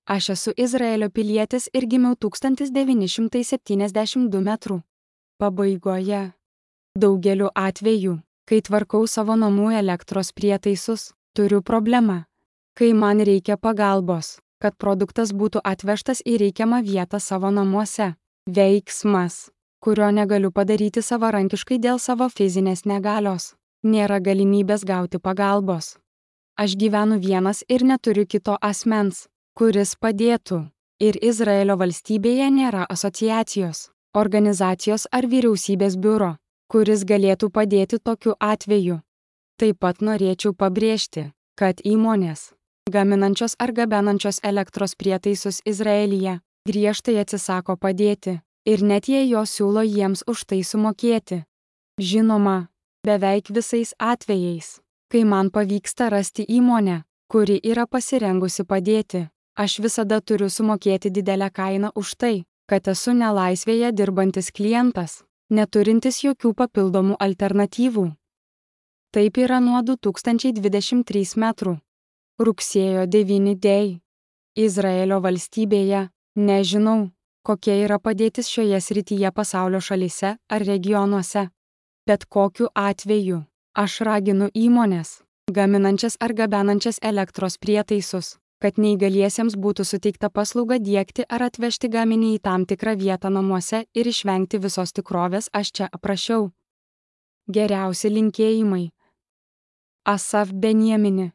Aš esu Izraelio pilietis ir gimiau 1972 metrų pabaigoje. Daugeliu atveju, kai tvarkau savo namų elektros prietaisus, turiu problemą. Kai man reikia pagalbos, kad produktas būtų atvežtas į reikiamą vietą savo namuose. Veiksmas, kurio negaliu padaryti savarankiškai dėl savo fizinės negalios. Nėra galimybės gauti pagalbos. Aš gyvenu vienas ir neturiu kito asmens, kuris padėtų. Ir Izraelio valstybėje nėra asociacijos, organizacijos ar vyriausybės biuro, kuris galėtų padėti tokiu atveju. Taip pat norėčiau pabrėžti, kad įmonės, gaminančios ar gabenančios elektros prietaisus Izraelyje, griežtai atsisako padėti, ir net jei jos siūlo jiems už tai sumokėti. Žinoma, beveik visais atvejais, kai man pavyksta rasti įmonę, kuri yra pasirengusi padėti, aš visada turiu sumokėti didelę kainą už tai, kad esu nelaisvėje dirbantis klientas, neturintis jokių papildomų alternatyvų. Taip yra nuo 2023 metrų. Rugsėjo 9 dėj. Izraelio valstybėje, nežinau, kokia yra padėtis šioje srityje pasaulio šalyse ar regionuose. Bet kokiu atveju, aš raginu įmones, gaminančias ar gabenančias elektros prietaisus, kad neįgaliesiems būtų suteikta paslauga diegti ar atvežti gaminį į tam tikrą vietą namuose ir išvengti visos tikrovės aš čia aprašiau. Geriausi linkėjimai. Asaf Benjamini.